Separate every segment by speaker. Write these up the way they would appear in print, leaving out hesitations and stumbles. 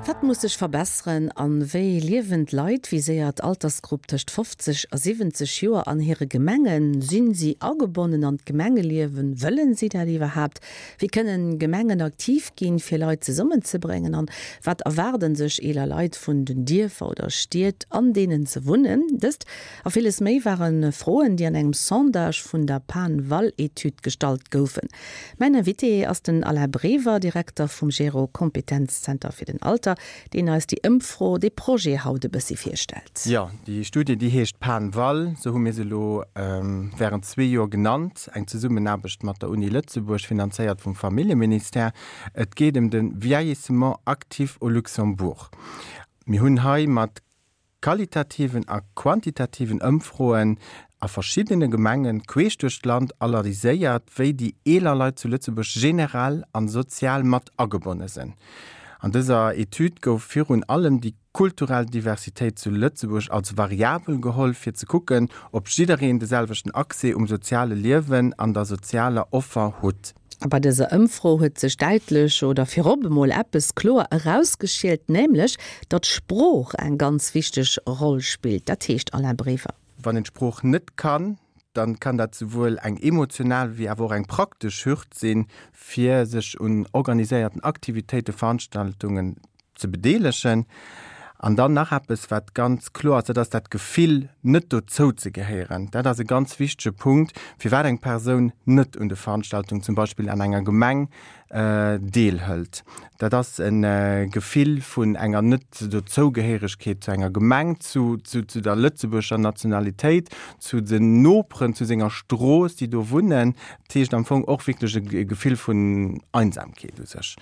Speaker 1: Wat muss sech verbesseren an wéi liewen d'Leit, viséiert Altersgrupp tëscht 50 a 70 Joer, an hire Gemengen? Sinn si agebonnen an d'Gemengeliewen? Wëllen si dat iwwerhaapt? Wéi kënnen Gemengen aktiv ginn, fir Leit zesummenzebréngen? An wat erwaarden sech eeler Leit vun den Dierfer oder Stied, an deenen se wunnen? Dëst a villes méi ware Froen, déi an engem Sondage vun der PAN-Val-Etüd gestallt goufen. Mäin Invité ass den Alain Brever, Direkter vum Gero Kompetenzzenter fir den Alter, deen eis déi Ëmfro, dee Projet haut e bëssi virstellt.
Speaker 2: Jo, déi Studie, déi heescht PAN-Val, esou hu mir se elo wärend zwee Joer genannt, eng Zesummenaarbecht mat der Uni Lëtzebuerg, finanzéiert vum Familljeministère. Et geet ëm de Vieillissement actif au Luxembourg. Mir hunn hei mat qualitativen a quantitativen Ëmfroen a verschiddene Gemenge queesch duerch d'Land analyséiert, wéi déi eeler Leit zu Lëtzebuerg generell an sozial mat agebonne sinn. An dëser Etüd gouf virun allem déi kulturell Diversitéit zu Lëtzebuerg als Variabel geholl, fir ze kucken, ob jiddereen de selwechten Accès um soziale Liewen an der sozialer Offer hutt.
Speaker 1: A bei dëser Ëmfro huet sech däitlech oder virop emol eppes kloer erausgeschielt, nämlech datt d'Sprooch eng ganz wichteg Roll spillt. Dat heescht, Alain Brever.
Speaker 2: Wann een d'Sprooch net kann, dann kann dat souwuel eng emotional wéi awer och eng praktesch Hürd sinn, fir sech un organiséierten Aktivitéiten, Veranstaltungen ze bedeelegen. An dann nach eppes, wat ganz kloer ass, dat ass dat Gefill, net dozou ze gehéieren. Dat ass e ganz wichtege Punkt, firwat eng Persoun net un de Veranstaltungen, zum Beispill an enger Gemeng, deelhëlt. Dat ass e Gefill vun enger Net-Dozougehéiregkeet zu enger Gemeng, zu der lëtzebuerger Nationalitéit, zu den Noperen, zu senger Strooss, déi do wunnen. Dat heescht am Fong och wierklech e Gefill vun Einsamkeet u sech.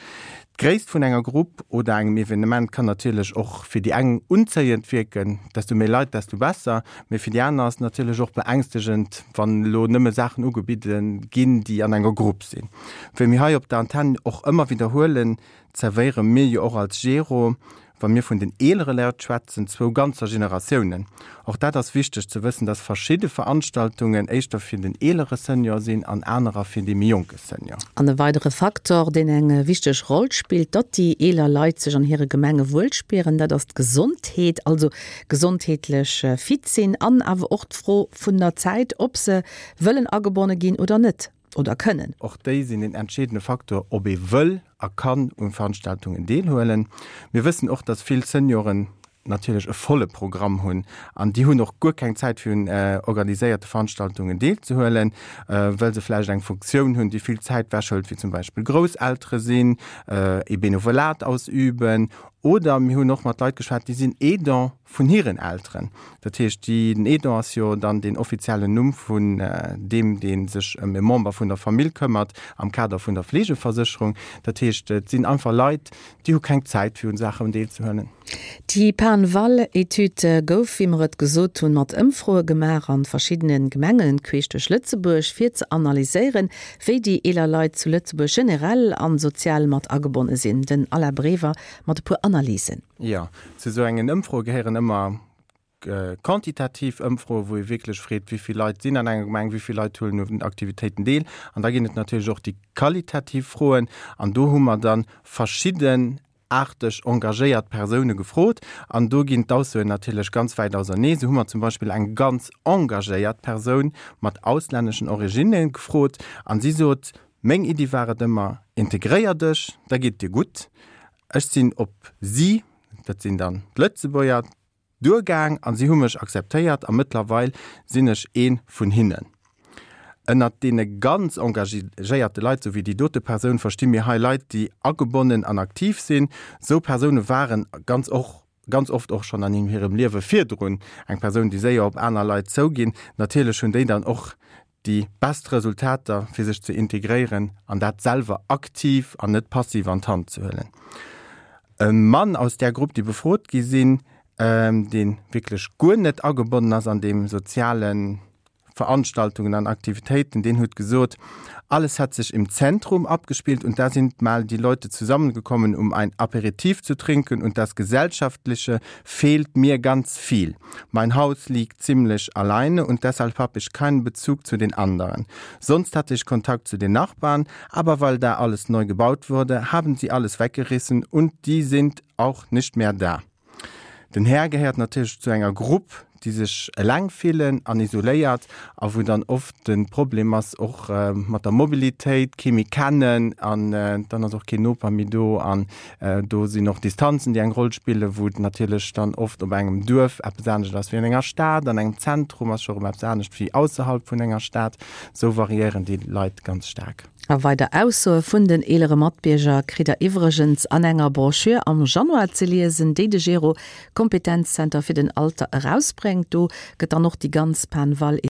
Speaker 2: D'Gréisst vun enger Grupp oder engem Evenement kann natierlech och fir déi eng unzéiend wierken, desto méi Leit, desto besser, mee fir déi aner ass et natierlech och beängstegend, wann elo nëmme Saachen ugebidde ginn, déi an enger Grupp sinn. Wéi mir hei op der Antenn och ëmmer widderhuelen, zerwéiere mir jo och als Gero Wa mir vun den eelere Leit schwätzen, zwou ganzer Generatiounen. Och dat ass wichteg ze wëssen, dass verschidde Veranstaltungen éischter fir den eelere Senior sinn an anerer fir dee méi jonke Senior.
Speaker 1: An e weidere Faktor, deen eng wichteg Roll spillt, datt déi eeler Leit sech an hire Gemenge wuel spieren, dat ass d'Gesondheet, also gesondheetlech fit sinn an awer och d'Fro vun der Zäit, ob se wëllen agebonne ginn oder net. Oder kënnen.
Speaker 2: Och déi sinn een entscheedende Faktor, ob ee wëll a kann un Veranstaltungen deelhuelen. Mir wëssen och, dass vill Senioren natierlech e volle Programm hunn an déi hunn och guer keng Zäit fir un organiséierte Veranstaltungen deelzehuelen, well se vläicht eng Funktioun hunn, déi vill Zäit wechhëlt, wéi zum Beispill Grousseltere sinn, ee Benevolat ausüben oder mir hunn och mat Leit geschwat, déi sinn Aidant vun hiren Elteren. Dat heescht, déi, den Aidant ass jo dann deen offiziellen Numm vun deem, dee sech ëm e Member vun der Famill këmmert am Kader vun der Fleegeversécherung. Dat heescht, et sinn einfach Leit, déi hu keng Zäit, fir un Saachen deelzehuelen.
Speaker 1: Déi PAN-Val-Etüd gouf, wéi mer et gesot hunn, mat Ëmfroe gemaach an verschiddene Gemengen queesch duerch Lëtzebuerg, fir ze analyséieren, wéi déi eeler Leit zu Lëtzebuerg generell an sozial mat agebonne sinn. Den Alain Brever mat e puer Analysen.
Speaker 2: Jo, zu esou engen Ëmfroe gehéieren ëmmer quantitativ Ëmfroe, wou ee wierklech freet, wéi vill Leit sinn an enger Gemeng, wéi vill Leit huelen un Aktivitéiten deel. An da ginn et natierlech och déi qualitativ Froen. An do hu mer da verschiddenaarteg engagéiert Persoune gefrot. An do ginn d'Aussoen natierlech ganz wäit ausernee. Sou hu mer zum Beispill eng ganz engagéiert Persoun mat auslänneschen Originne gefrot an si sot, Meng Iddi war et ëmmer, integréier dech, da geet et dir gutt. Ech sinn op si, dat sinn dann d'Lëtzebuerger, duergaang a si hu mech akzeptéiert a mëttlerweil sinn ech ee vun hinnen. Ënnert deene ganz engagéierte Leit, sou wéi déi dote Persoun, versti mir hei Leit, déi agebonnen an aktiv sinn. Sou Persoune waren ganz och ganz oft och schonn an hirem Liewe virdrun eng Persoun, déi séier op aner Leit zouginn. Natierlech hunn déi dann och déi best Resultater fir sech ze integréieren an dat selwer aktiv an net passiv an d'Hand ze huelen. E Mann aus där Grupp déi befrot gi sinn, dee wierklech guer net agebonnen ass an deem soziale. Veranstaltungen an Aktivitéiten, deen huet gesot, Alles hat sich im Zentrum abgespielt und da sind mal die Leute zusammengekommen, um ein Aperitif zu trinken und das Gesellschaftliche fehlt mir ganz viel. Mein Haus liegt ziemlich alleine und deshalb habe ich keinen Bezug zu den anderen. Sonst hatte ich Kontakt zu den Nachbarn, aber weil da alles neu gebaut wurde, haben sie alles weggerissen und die sind auch nicht mehr da. Den Här gehéiert natierlech zu enger Grupp, déi sech eleng fillen an isoléiert a wou dann oft de Problem ass och mat der Mobilitéit, kee méi kennen an dann ass och keen Noper méi do an do sinn och Distanzen, déi eng Roll spillen, wou et natierlech dann oft op engem Duerf eppes anescht ass wéi an enger Stad, an engem Zentrum ass scho rëm eppes anescht wéi ausserhalb vun enger Stad. Esou variéieren déi Leit ganz staark.
Speaker 1: A weider Aussoe vun den eelere Matbierger kritt der iwwregens an enger Broschür am Januar ze liesen, déi de Gero Kompetenzzenter fir den Alter erausbréngt. Do gëtt dann och déi ganz Pan-Val.